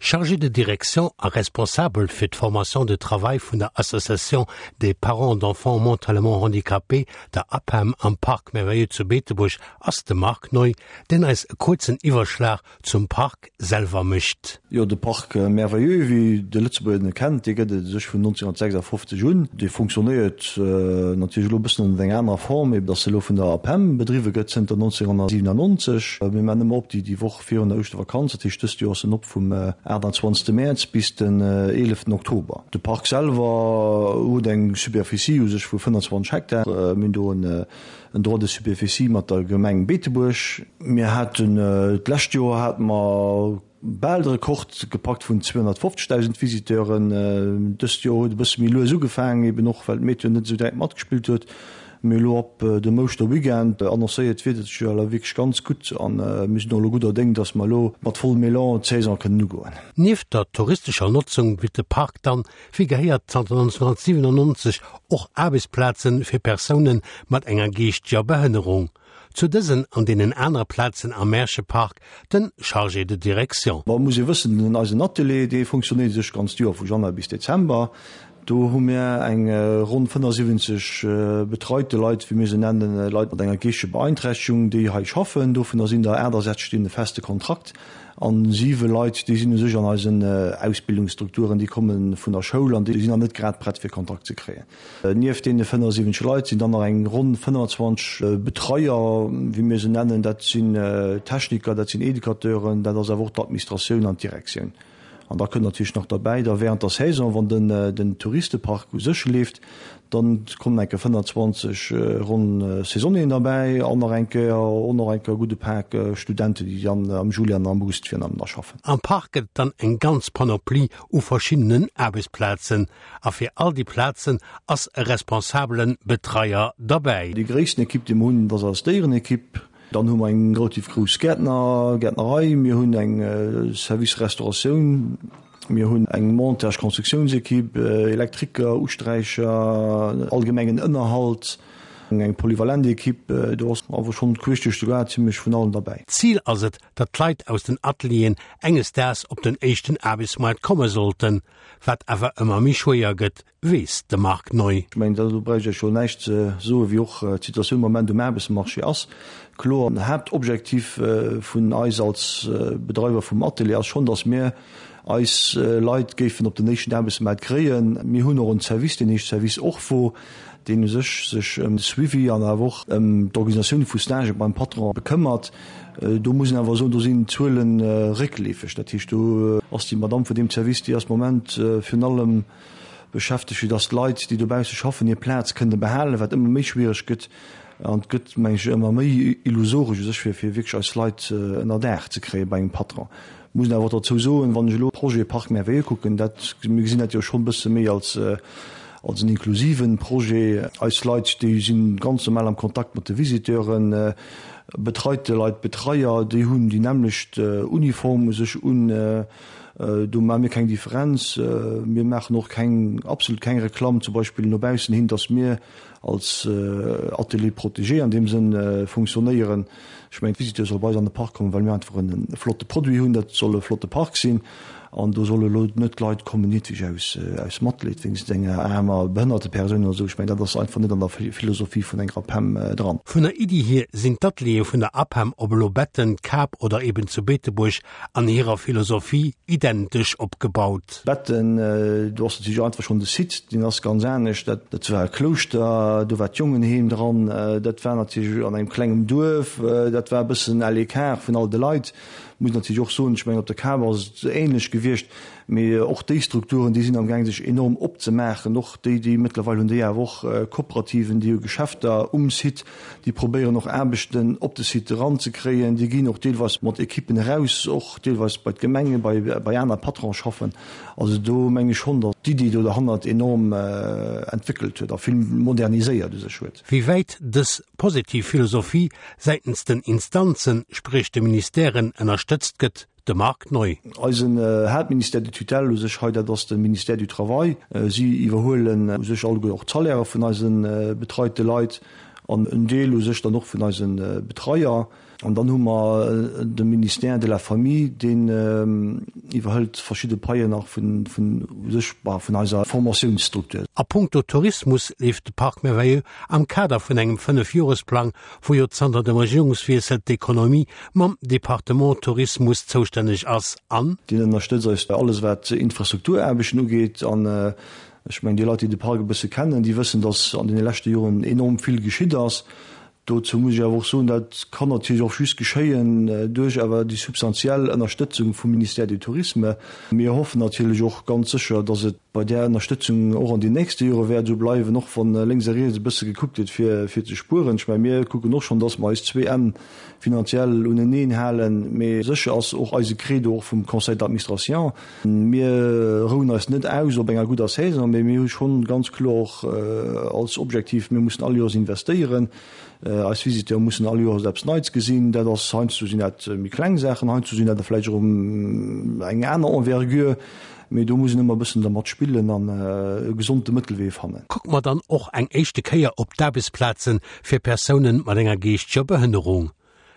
Chargé de direction a Responsabel fir d'Formation de travail vun der Association des parents d'enfants mentalement handicapés, der APEM, am Parc Merveilleux zu Beetebuerg ass de Marc Neu, deen eis e kuerzen Iwwerschlag zum Park selwer mécht. Jo, de Parc Merveilleux, wéi de Lëtzebuerger en kennt, dee gëtt et u sech vun 1956 un. Dee funktionéiert natierlech elo e bëssen ënnert enger anerer Form, ebe datt e elo vun der APEM bedriwwe gëtt zënter 1997. Mir maachen ëmmer op déi déi Woch virun der Ouschtervakanz, dat heescht dëst Joer ass en op vum 28. Mäerz bis den 11. Oktober. De Park selwer huet eng Superficie u sech vu 25 Hektar. Mir hunn do en En Droit de superficie mat der Gemeng Beetebuerg. Mir haten d'lescht Joer hate mer bal de Rekord gepackt vun 250.000 Visiteuren. Dëst Joer huet e bësse méi lues ugefaangen, eben och well d'Meteo net esou direkt matgespillt huet. Mee elo ab dem Ouschterweekend annoncéiert d'Wieder sech jo elo wierklech ganz gutt an mir sinn och elo gudder Déng, dass mer elo mat vollem Elan d'Saison kënnen ugoen. Nieft der touristescher Notzung bitt de Park dann Wéi gehéiert zanter 1997 och Aarbechtsplaze fir Persoune mat enger geeschteger Behënnerung. Zu dësen an deenen anere Plazen am Märchepark den Chargé de direction. Bon, et muss ee wëssen, den eisen Atelier, dee funktionéiert sech ganzt Joer, vu Januar bis Dezember. Do hu mir eng ronn 75 betreite Leit, wéi mir se nennen, Leit mat enger geeschteger Beeinträchtegung, déi hei schaffen. Dovunner sinn der 68, déi hunn e feste Kontrakt. An siwe Leit, déi sinn u sech an eisen Ausbildungsstrukturen, déi komme vun der Schoul an déi sinn nach net grad prett fir Kontakt ze kréien. Nieft deene 75 Leit sinn dann nach eng ronn 25 Betreier, wéi mir se nennen. Dat sinn Techniker, dat sinn Educateuren, dat ass awer och d'Administratioun an d'Direktioun. An da kënnt natierlech nach derbäi, da während der Saison, wann den Touristepark u sech leeft, da kommen eng Kéier 25 ronn Saisonnieren derbäi an nach eng Kéier och nach eng Kéier e gudde Pak Studenten, déi dann am Juli an am August virun allem da schaffen. Am Park gëtt et dann eng ganz Panoplie u verschiddenen Aarbechtsplazen a fir all déi Plazen ass e responsabele Betreier derbäi. Déi gréissten Ekipp, déi mer hunn, dat ass eis Déierenekipp. Dann hu mer eng relativ grouss Gäertner, Gäertnerei, mir hunn eng Service Restauratioun, mir hunn eng Montage Constructiounsequipe, Elektriker, Usträicher, allgemengen Ënnerhalt, eng polyvalent Equipe. Do ass awer schonn queesch duerch de Gaart zimlech vun allem derbäi. Zil ass et, datt d'Leit aus den Atelieren enges Daags op den éischten Aarbechtsmoart komme sollten, wat awer ëmmer méi schwéier gëtt, weess de Marc Neu. Ech mengen, do bräicht ech Iech jo näischt ze soen, wéi och d'Situatioun am Moment um Aarbechtsmarché ass. Kloer, den Haaptobjektiv vun eis als Bedreiwer vum Atelier ass schonn, datt mir eis Leit géifen op den éischten Aarbechtsmaart kréien. Mir hunn och en Service, deen heescht Service Orpho, deen u sech sech ëm de Suivi an awer och ëm d'Organisatioun vu Stagë beim Patron bekëmmert. Do muss een awer soen, do sinn d'Zuele réckleefeg. Dat heescht, do ass déi Madamm vun deem Service, déi ass am Moment virun allem beschäftegt, fir dass d'Leit, déi dobausse schaffen, hir Plaz kënne behalen, wat ëmmer méi schwiereg gëtt. An et gëtt, meng ech, ëmmer méi illusoresch u sech, fir fir wierklech eis Leit ënner Daach ze kréie bei engem Patron. Muss een awer och derzou soen, wann ech elo Projet Parc Merveilleux kucken, dat, mir gesinn dat jo schonn e bësse méi als als en inklusiven Projet. Eis Leit, déi si ganz normal am Kontakt mat de Visiteuren, betreite Leit, Betreier, déi hunn déi nämmlecht Uniform u sech un. Do maache mir keng Differenz. Mir maachen och keng, absolut keng Reklamm zum Beispill no baussen hin, datt mir als Atelier protégé an deem Sënn funktionéieren. Ech mengen, d'Visiteure solle bei eis an de Park kommen, well mir einfach e flotte Produit hunn. Dat soll e flotte Park sinn an do solle elo net Leit kommen, nieweg aus, aus Matleed wéinst enger aarmer behënnerte Persoun oder esou. Ech mengen, dat ass einfach net an der Philosophie vun enger APEM dran. Vun der Iddi hier sinn d'Ateliere vun der APEM, ob elo Betten, Kap oder eben zu Beetebuerg, an hirer Philosophie identesch opgebaut. Betten, do ass natierlech einfach schonn de Site, deen ass ganz anescht. Dat, dat war e Klouschter, do war d'Jongenheem dran, dat war natierlech an engem klengem Duerf, dat war e bëssen à l'écart vun all de Leit. Muss natierlech och soen, ech mengen op der Kap ass et ähnlech gewiescht, mee och déi Strukturen, déi sinn amgaang sech enorm opzemaachen, och déi, déi mëttlerweil hunn déi awer och Kooperativen, déi hu Geschäfter um Site. Déi probéieren och Aarbechten op de Site eranzekréien. Déi ginn och deelweis mat Ekippen eraus, och deelweis bei d'Gemengen, bei, bei aner Patrone schaffen. Also do meng ech schonn, datt d'Iddi do derhannert enorm entwéckelt huet a vill moderniséiert u sech huet. Wéi wäit dës positiv Philosophie säitens den Instanzen, spréch de Ministèren, ënnerstëtzt gëtt, De Marc Neu. Eisen Haaptministère de tutelle u sech hei, dat ass de Ministère du Travail. Si iwwerhuelen u sech alleguer och d'Salairë vun eise betreite Leit an en Deel u sech dann och vun eise Betreier. An dann hu mer de Ministère de la Famille, deen iwwerhëlt verschidde Paien nach vun, vun u sech, bah, vun eiser Formatiounsstruktur. A puncto Tourismus leeft de Parc Merveilleux am Kader vun engem Fënnefjoresplang, wou jo zanter dem Regierungswiessel d'Ekonomie mam Departement Tourismus zoustänneg ass, an. Deen ënnerstëtzt eis bei alles wat Infrastrukturaarbechten ugeet. An ech mengen, déi Leit, déi de Park e bësse kennen, déi wëssen, dass an deene leschte Joren enorm vill geschitt ass. Dozou muss ech awer och soen, dat kann natierlech och just geschéien duerch awer déi substantiell Ënnerstëtzung vum Ministère du Tourisme. Mir hoffen natierlech och ganz sécher, dass et bei där Ënnerstëtzung och an den nächste Jore wäert esou bleiwen, och wann lénks a riets e bësse gekuckt gëtt fir fir ze spueren. Ech mengen, mir kucken och schonn, dass mer eis zwee Enn finanziell uneneen halen, mee sécher ass och eise Credo och vum Conseil d'administration, Mir rouen eis net aus op enger gudder Saison, mee mir hu schonn ganz kloer och als Objektiv, mir mussen all Joers investéieren. Eis Visiteure mussen all Joers eppes Neits gesinn. Dat ass, heiansdo sinn dat méi kleng Saachen, heiansdo sinn dat der vläicht erëm eng aner Envergure, mee do muss een ëmmer e bëssen dermat spillen an e gesonde Mëttelwee fannen. Kucke mer dann och eng éischte Kéier op d'Aarbechtsplaze fir Persounen mat enger geeschteger Behënnerung.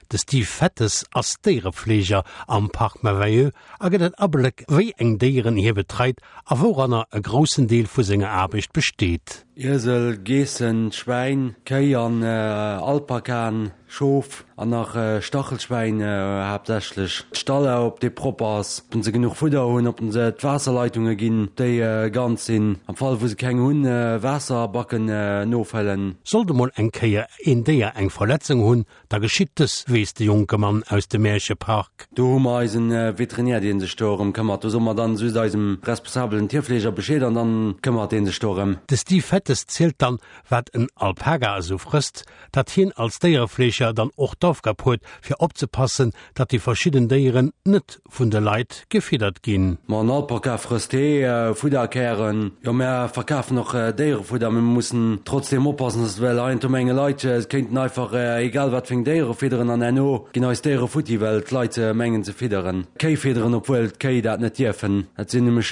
De Steve Fettes ass Déierefleeger am Parc Merveilleux a gëtt en Abléck, wéi eng Déieren hie betreit a wouranner e groussen Deel vu senger Aarbecht besteet. Iesel, Geessen, Schwäin, Kéi an Alpakaen, Schof an nach Stachelschwäin haaptsächlech. D'Stalla, ob dee propper ass, ob se genuch Fudder hunn, ob se d'Waasserleitunge ginn, déi ganz sinn. Am Fall wou se keng hunn, Waasserbacken nofëllen. Sollt emol eng Kéier een Déier eng Verletzung hunn, Da geschitt dës, weess de jonke Mann aus dem Märchepark. Do hu mer eisen Veterinär, dee sech do erëm këmmert. Do soe mer dann just eisem responsabelen Tierfleeger Bescheed an dann këmmert dee sech do erëm. De Steve Fettes zielt dann, wat en Alpaga esou frësst, datt hien als Déierefleeger dann och d'Aufgab huet, fir opzepassen, datt déi verschidden Déieren net vun de Leit gefiddert ginn. Ma en Alpaka frësst Hee, Fudderkären. Jo, mär verkafen och Déierefudder, mee mir mussen trotzdeem oppassen, dass well heiansdo menge Leit, se kéinten einfach egal wat fir eng Déiere fidderen an herno ginn eis Déiere futti, well d'Leit mengen ze fidderen. Kéi fidderen, obwuel d'Kéi dat net dierfen. Dat sinn nämlech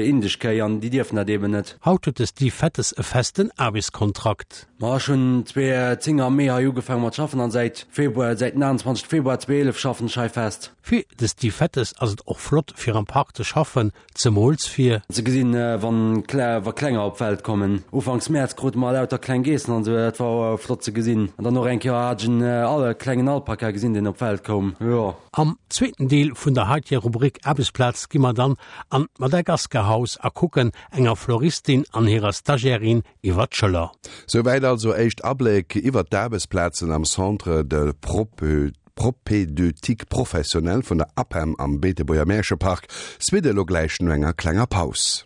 indesch Kéi an déi dierfen dat eeben net. Haut huet de Steve Fettes e festen Aarbechtskontrakt. Ma ech hunn 2010 am Mee hei ugefaange mat schaffen an säit Februar, säit den 28 Februar 2011 schaffen ech hei fest. Fir de Steve Fettes ass et och flott fir am Park ze schaffen, zemools fir. Ze gesinn wann wa Klenger op d'Welt kommen. Ufanks Mäerz krute mer lauter kleng Geessen an esou, dat war flott ze gesinn. An dann och eng Kéier hat ech en al klengen Alpaka gesinn deen op d'Welt koum, jo. Am zweeten Deel vun der heiteger Rubrik Aarbechtsplaz gi mer dann an d'Madagascar-Haus a kucken enger Floristin an hirer Stagiairin iwwer d'Schëller. Souwäit also éischt Abléck iwwert d'Aarbechtsplazen am Centre de Propédeutique Professionnel vun der APEM am Beetebuerger Märchepark. Suite elo gläich no enger klenger Paus.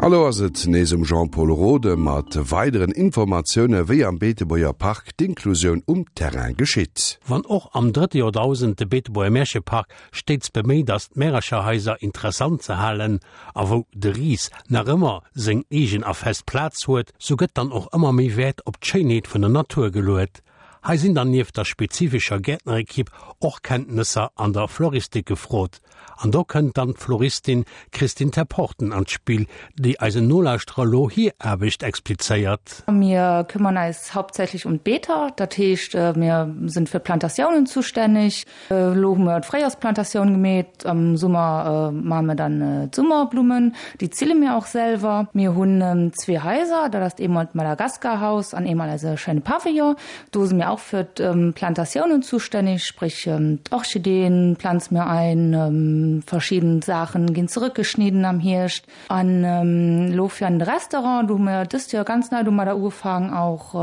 A lo ass et nees um Jean-Pol Rode mat weideren Informatioune wéi am Beetebuerger Park d'Inklusioun um Terrain geschitt. Wann och am drëtte Joerdausend de Beetebuerger Märchepark stéits beméit ass d'Märercherhaiser interessant ze halen a wou de Ris nach ëmmer seng eegen a fest Plaz huet, sou gëtt dann och ëmmer méi Wäert op d'Schéinheet vun der Natur geluet. Hei sinn dann nieft der spezifescher Gäertnerekipp och Kenntnesser an der Floristik gefrot. An do kënnt dann d'Floristin Christine Terporten an d'Spill, déi eisen Nolauschterer lo hir Aarbecht explizéiert. Mir kümmern eis hauptsächlich um d'Beeter, dat heescht mir sinn fir d'Plantatiounen zustännig. Elo hu mer d'Fréijoersplantatioun gemeet, am Summer maache mir dann d'Summerblummen, déi zille mir och selwer. Mir hunn zwee Haiser, dat ass eemol d'Madagaskarhaus an eemol eise schéine Pavillon. Do si mir. auch für Plantatiounen zuständig, sprich d'Orchideen planze mir ein, verschidden Saachen ginn zerëckgeschnidden am Hierscht. An elo fir an de Restaurant, do hu mir dëst Joer ganz nei domadder ugefaangen och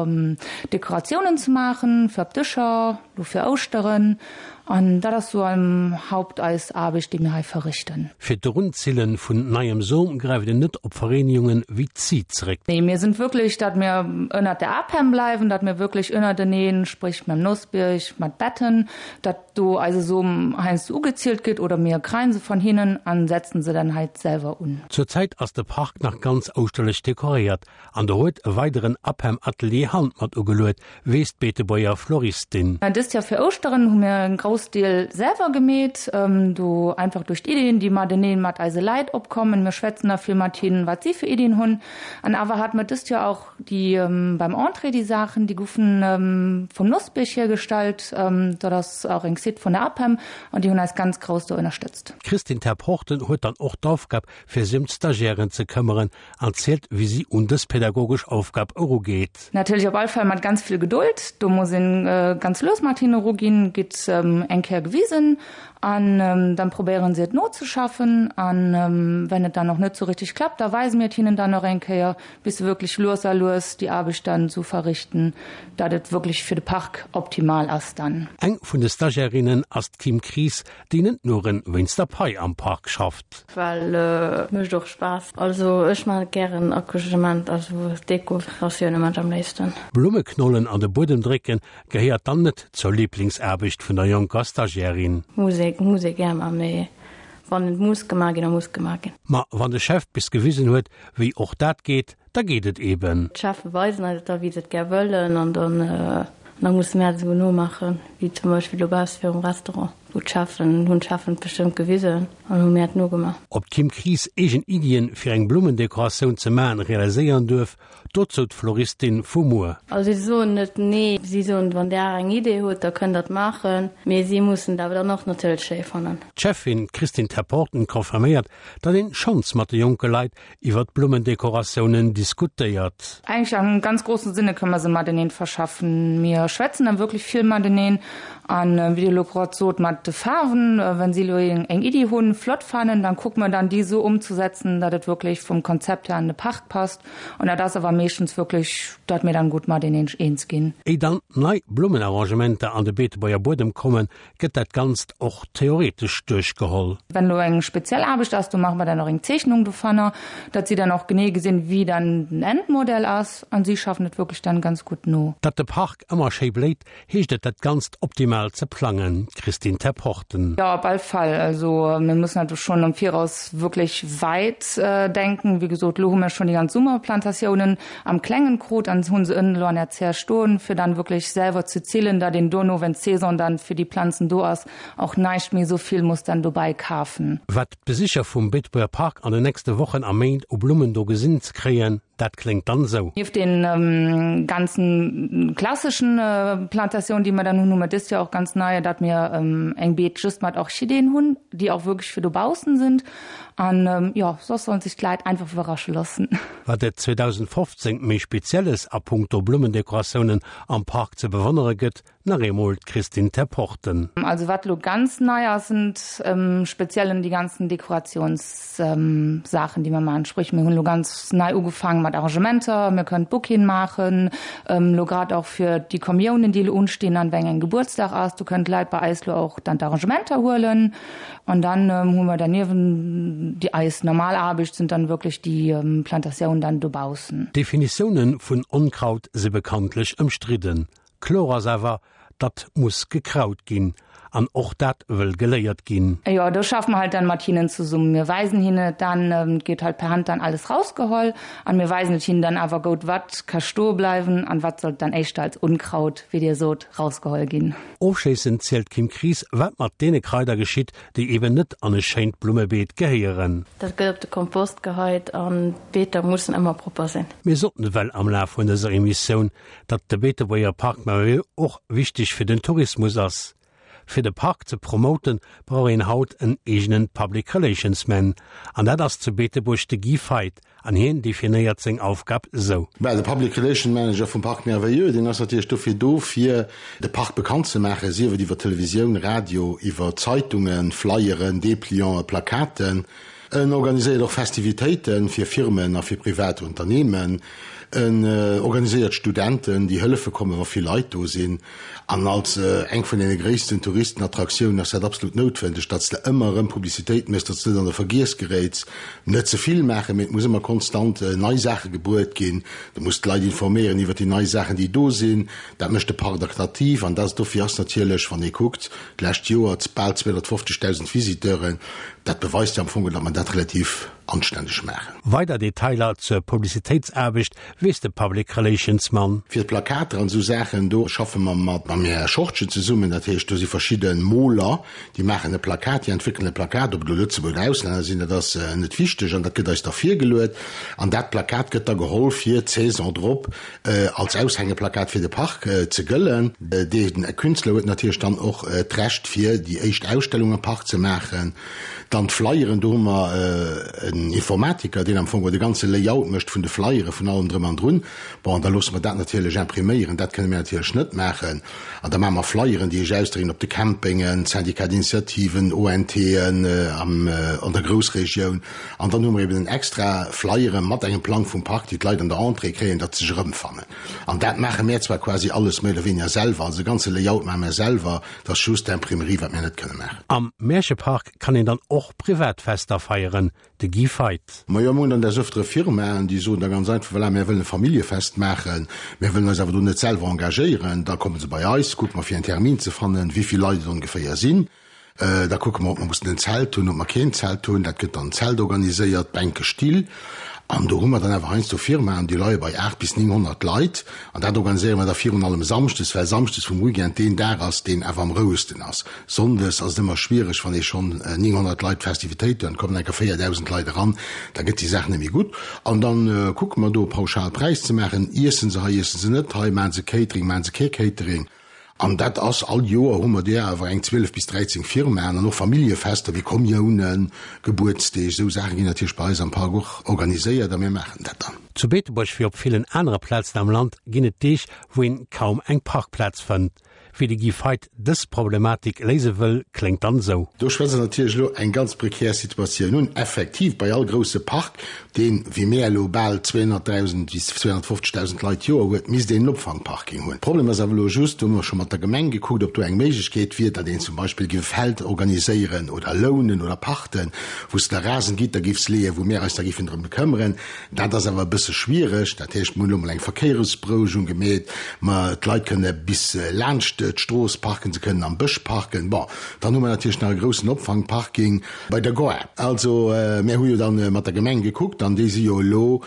Dekoratiounen ze maachen fir op Dëscher, elo fir Ouschteren. An dat ass sou am Haupt eis Aarbecht, déi mir hei verrichten. Fir d'Erunzillen vun neiem Som gräift een net op Vereenigungen wéi d'CIE zeréck. Nee, mir sinn wierklech, datt mir ënnert der APEM bleiwen, datt mir wierklech ënnerteneen, sprich mam Nossbierg, mat Betten, datt do eise Som heiansdo ugezielt gëtt oder mir kreien se von hinnen an setzen se dann halt selwer un. Zur Zäit ass de Park nach ganz ouschterlech dekoréiert an do huet e weideren APEM-Atelier Hand mat ugeluet, weess d'Beetebuerger Floristin. Dëst Joer fir Ouschteren hu mir en Groussdeel selwer gemeet, do einfach duerch d'Iddien déi mateneen mat eise Leit opkommen. Mir schwätzen da vill mat hinnen, wat si fir Iddien hunn an awer hate mir dëst Joer och Déi beim Entrée, déi Saachen, déi goufen vum Nossbierg hiergestallt. Dat ass och eng Site vun der APEM an déi hunn eis ganz grouss do ënnerstëtzt. D'Christine Terporten huet dann och d'Aufgab, fir sech ëm d'Stagiairen ze këmmeren an zielt, wéi si un dës pädagogesch Aufgab erugeet. Natierlech op all Fall mat ganz vill Geduld. Do muss een ganz lues mat hinne eruginn, gitt eng Kéier gewisen an dann probéieren si et nozeschaffen. An wenn et dann och net sou richteg klappt, da weise mir et hinnen dann och eng Kéier. bis se wierklech lues a lues déi Aarbecht dann esou verrichten, datt et wierklech fir de Park optimal ass dann. Eng vun de Stagiairinnen ass d'Kim Kries, déi net nuren wéinst der Pai am Park schafft. Well et mécht och Spaass. Also ech maachen et gären Accouchement, also Dekoratioune maan ech am léifsten. Blummeknollen an de Buedem drécken gehéiert dann net zur Liblingsaarbecht vun der jonker Stagiairin. Musek, Musek gär man, mee wann et muss gemaach ginn, da muss gemaach ginn. Ma wann de Chef bis gewisen huet, Wéi och dat geet, da geet et eben. D'Cheffen weisen eis et da wéi se et gär wëllen an dann da musse mär et esou nomaachen, wéi zum Beispill dobausse virum Restaurant, wou d'Cheffen, hunn d'Cheffen et bestëmmt gewisen an hu mär et nogemaach. Ob d'Kim Kries eegen Iddien fir eng Blummendekoratioun ze maachen realiséieren duerf, dozou d'Floristin vu muer. Also si soen net nee, si soen, wann där eng Idee hutt, da kënnt der et maachen, mee si mussen et awer dann och natierlech schéi fannen. D'Cheffin Christine Terporten confirméiert, datt een schonns mat de jonke Leit iwwer d'Blummendekoratiounen diskutéiert. Eigentlich am ganz großen Sinne kënne mer se mateneen verschaffen. Mir schwätzen dann wirklich vill mateneen an wéi Dir elo grad sot mat de Faarwen, wenn si elo eng Iddi hunn, flott fannen, dann kucke mer dann déi esou umzusetzen, datt et wirklich vum Konzept her an de Park passt an dat ass awer meeschtens wirklich, datt mir dann gutt mateneen eens ginn. Éi dann nei Blummenarrangementer an de Beetebuerger Buedem kommen, gëtt dat Ganzt och theoretesch duerchgeholl. Wenn elo eng speziell Aarbecht ass, do maache mer dann och eng Zeechnung dovunner, datt si dann och genee gesinn, wéi dann den Endmodell ass an si schaffen et wierklech dann ganz gutt no. Datt de Park ëmmer schéi bléit, heescht et dat Ganzt optimal ze plangen, Christine Terporten. Jo, op all Fall. Also mir mussen halt schonn am Viraus wierklech wäit denken. Wéi gesot, elo hu mir schonn déi ganz Summerplantatiounen am klengen krut an hunn se ënnen elo an der Zär stoen, fir dann wierklech selwer ze zillen, datt een dono, wenn d'Saison dann fir déi Planzen do ass, och näischt méi esou vill muss dann dobäi kafen. Wat d'Besicher vum Beetebuerger Park an den nächste Wochen a Méint u Blummen do gesinn ze kréien, dat kléngt dann esou. Nieft den ganzen klasseschen Plantatiounen, déi mer dann hunn, hu mer dëst Joer och ganz nei, datt mir eng Beet just mat Orchideen hunn, déi och wierklech fir dobaussen sind. An jo, soss sollen sech d'Leit einfach iwwerrasche loossen. Wat et 2015 méi Spezielles a punkto Blummendekoratiounen am Park ze bewonnere gëtt, nach eemol d'Christine Terporten. Also wat elo ganz nei ass, sind speziellen déi ganzen Dekoratiounssaachen, déi mer maachen. Sprich mir hunn elo ganz nei ugefaange mat Arrangementer, mir kënnen Bouqueten maachen, elo grad och fir déi Kommiounen, déi elo unstinn an weng eng Gebuertsdag ass, do kënnen d'Leit bei eis elo och dann d'Arrangementer huelen. An dann hu mer derniewent déi eis normal Aarbecht sind dann wierklech déi Plantatiounen dann dobaussen. D'Definitioune vun Onkraut si bekanntlech ëmstridden. Kloer ass awer, datt muss gekraut ginn. An och dat wëll geléiert ginn. Jo, do schaffe mer halt dann mat hinnen zesummen. Mir weisen hinnen et dann, et gétt halt per Hand dann alles rausgeholl an mir weisen et hinnen dann awer goud, wat ka stoe bleiwen an wat sollt dann éischter als Unkraut, wéi Dir sot, rausgeholl ginn. Ofschléissend zielt d'Kim Kries, wat mat deene Kraider geschitt, déi eben net an e schéint Blummebeet gehéieren. Dat gëtt op de Kompost geheit an d'Beeter mussen ëmmer propper sinn. Mir soten ewell am Laf vun dëser Emissioun, datt de Beetebuerger Parc Merveilleux och wichteg fir den Tourismus ass. Fir de Park ze promoten, brauch een haut en eegenen Public Relations Man. An dat ass zu Beetebuerg de Guy Feidt. An hien definéiert seng Aufgab sou. Well de Public Relation Manager vum Parc Merveilleux, deen ass natierlech dofir do, fir de Park bekannt ze maachen, sief et iwwer Televisioun, Radio, iwwer Zeitungen, Flyeren, Deplianten, Plakaten. En organiséiert och Festivitéite fir Firmen a fir privat Unternehmen. En organiséiert Studenten, déi hëllefe kommen, wa vill Leit do sinn. An als eng vun deene gréissten Touristenattraktiounen ass dat absolut noutwendeg, datt s de ëmmer erëm Publicitéit méchs, datt s de net an de Vergiess geréits. Net ze vill maachen, mee et muss ëmmer konstant nei Saache gebruet ginn. Du muss d'Leit informéieren iwwer déi nei Saachen, déi do sinn. Dat mécht de Park attraktiv. An dat dofir ass natierlech, wann ee kuckt, d'lescht Joer bal 250.000 Visiteuren, dat beweist jo am Fong, datt mer dat relativ anständeg maachen. Weider Detailer zur Publicitéitsaarbecht weess de Public Relations Mann. Fir d'Plakater an esou Saachen, do schaffe mer mat mam Här Schortgen zesummen. Dat heescht, do si verschidde Moler, déi maachen e Plakat, déi entwéckelen e Plakat, ob et elo Lëtzebuerger oder Auslänner sinn, dat ass net wichteg, an dat gëtt eis da virgeluet. An dat Plakat gëtt da geholl fir d'Saison drop als Aushängeplakat fir de Park ze gëllen. Dee Künstler huet natierlech dann och d'Recht fir déi éischt Ausstellung am Park ze maachen. Dann d'Flyeren, do hu mer en Informatiker, deen am Fong de ganze Layout mécht vun de Flyere, vun allem drëm an drun. Bon, an da loosse mer dat natierlech impriméieren, dat kënne mir natierlech net maachen. An da maache mer Flyeren, déi ech ausdrécken op de Campingen, Syndicat d'initiativen, ONTen an der Groussregioun. An dann hu mer eben en extra Flyere mat engem Plang vum Park, déi d'Leit an der Entrée kréien, datt se sech erëmfannen. An dat maache mär zwar quasi alles méi oder weniger selwer, also de ganze Layout maache mär selwer, Et ass just d'Imprimerie, wat mir net kënne maachen. Am Märchepark kann een dann och privat Fester feieren, de Guy Feidt. Majo, mir hunn dann des Öftere Firmaen, déi soen da ganz einfach, voilà, mär wëllen e Familljefest maachen, mär wëllen eis awer do net selwer engagéieren. Da komme se bei eis, kucke mer fir en Termin ze fannen, wéi vill Leit et ongeféier sinn. Da kucke mer, ob mer mussen en Zelt hunn, ob mer keen Zelt hunn. Dat gëtt dann en Zelt organiséiert, Bänke, Still. An do hu mer dann awer heiansdo Firmaen, déi leie bei 8 bis 900 Leit. An dat organiséiere mer da virun allem samschdes, well samschdes vum Weekend deen Dag ass, deen awer am rouegsten ass. Sonndes ass et ëmmer schwiereg, wann ee schonn 900 Leit Festivitéit huet, kommen enker 4.000 Leit eran, da gëtt déi Saach net méi gutt. An da kucke mer do e pauschal Präis ze maachen, Iessen se hei, iessen se net hei, maachen se Catering, maachen se kee Catering. An dat ass, all Joer hu mer där awer eng 12 bis 13 Firmaen an och Familljefester wéi Kommiounen, Gebuertsdeeg, esou Saache ginn natierlech bei eis am Park och organiséiert a mir maachen dat dann. Zu Beetebuerg wéi op villen anere Plazen am Land ginn et Deeg, wou een kaum eng Parkplaz fënnt. Wéi de Guy Feidt dës Problematik léise wëll, kléngt dann esou. Do schwätzt Der natierlech elo eng ganz prekär Situatioun un. Effektiv, bei all grousse Park, deen, wéi mär elo, bal 200.000 bis 250.000 Leit d'Joer huet, misst een en Opfangparking hunn. Problem ass awer elo just, do hu mer scho mat der Gemeng gekuckt, ob do eng Méiglechkeet wier, datt een zum Beispill géif e Feld organiséieren oder lounen oder pachten, wou s de da Rasengitter géifs leeën, wou mär eis da géifen drëm bekëmmeren. Dat ass awer e bësse schwiereg. Dat heescht, mir hunn elo mol eng Verkéieresberouegung gemeet, ma d'Leit kënne bis laanscht d'Strooss parken, se kënnen am Bësch parken. Bon, dann hu mer natierlech nach e groussen Opfangparking bei der Gare. Also, mir hu jo dann mat der Gemeng gekuckt an déi si jo elo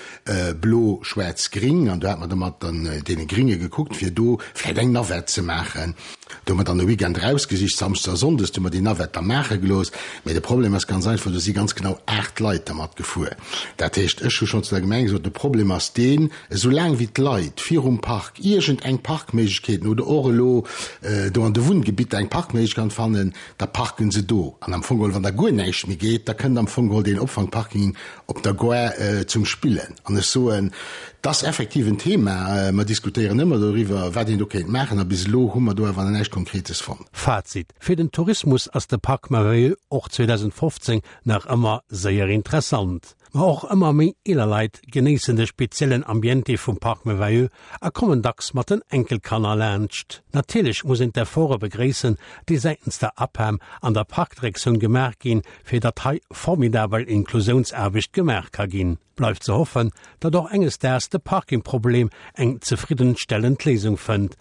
blo, schwaarz, gring an do hat mer da mat deene Gringe gekuckt, fir do vläicht eng Navette ze maachen. Do hu mer dann e Weekend erausgesicht, Samschdes a Sonndes, do hu mer déi Navette da maache gelooss. Mee de Problem ass ganz einfach, do si ganz genau 8 Leit dermat gefuer. Dat heescht, ech hu schonn zu der Gemeng gesot, de Problem ass deen, esou laang wéi d'Leit virum Park iergend eng Parkméiglechkeeten oder och elo do an de Wunngebitter eng Parkméiglechkeet fannen, da parken se do. An am Fong geholl, wann da guer näischt méi geet, da kënnt am Fong geholl deen Opfangparking op der Gare zum Spillen. An ech soen, 't ass effektiv en Thema, mer diskutéieren ëmmer doriwwer, wat een do kéint maachen, a bis elo hu mer do awer nach näischt Konkretes fonnt. Fazit, Fir den Tourismus ass de Parc Merveilleux och 2015 nach ëmmer séier interessant. Ma och ëmmer méi eeler Leit genéissen de speziellen Ambiente vum Parc Merveilleux a kommen dacks mat den Enkelkanner laanscht. Natierlech muss een d'Efforte begréissen, déi säitens der APEM an der Parkdirektioun gemaach ginn, fir datt hei formidabel Inklusiounsaarbecht gemaach ka ginn. Bleift ze hoffen, datt och enges Daags de Parkingproblem eng zefriddenstellend Léisung fënnt.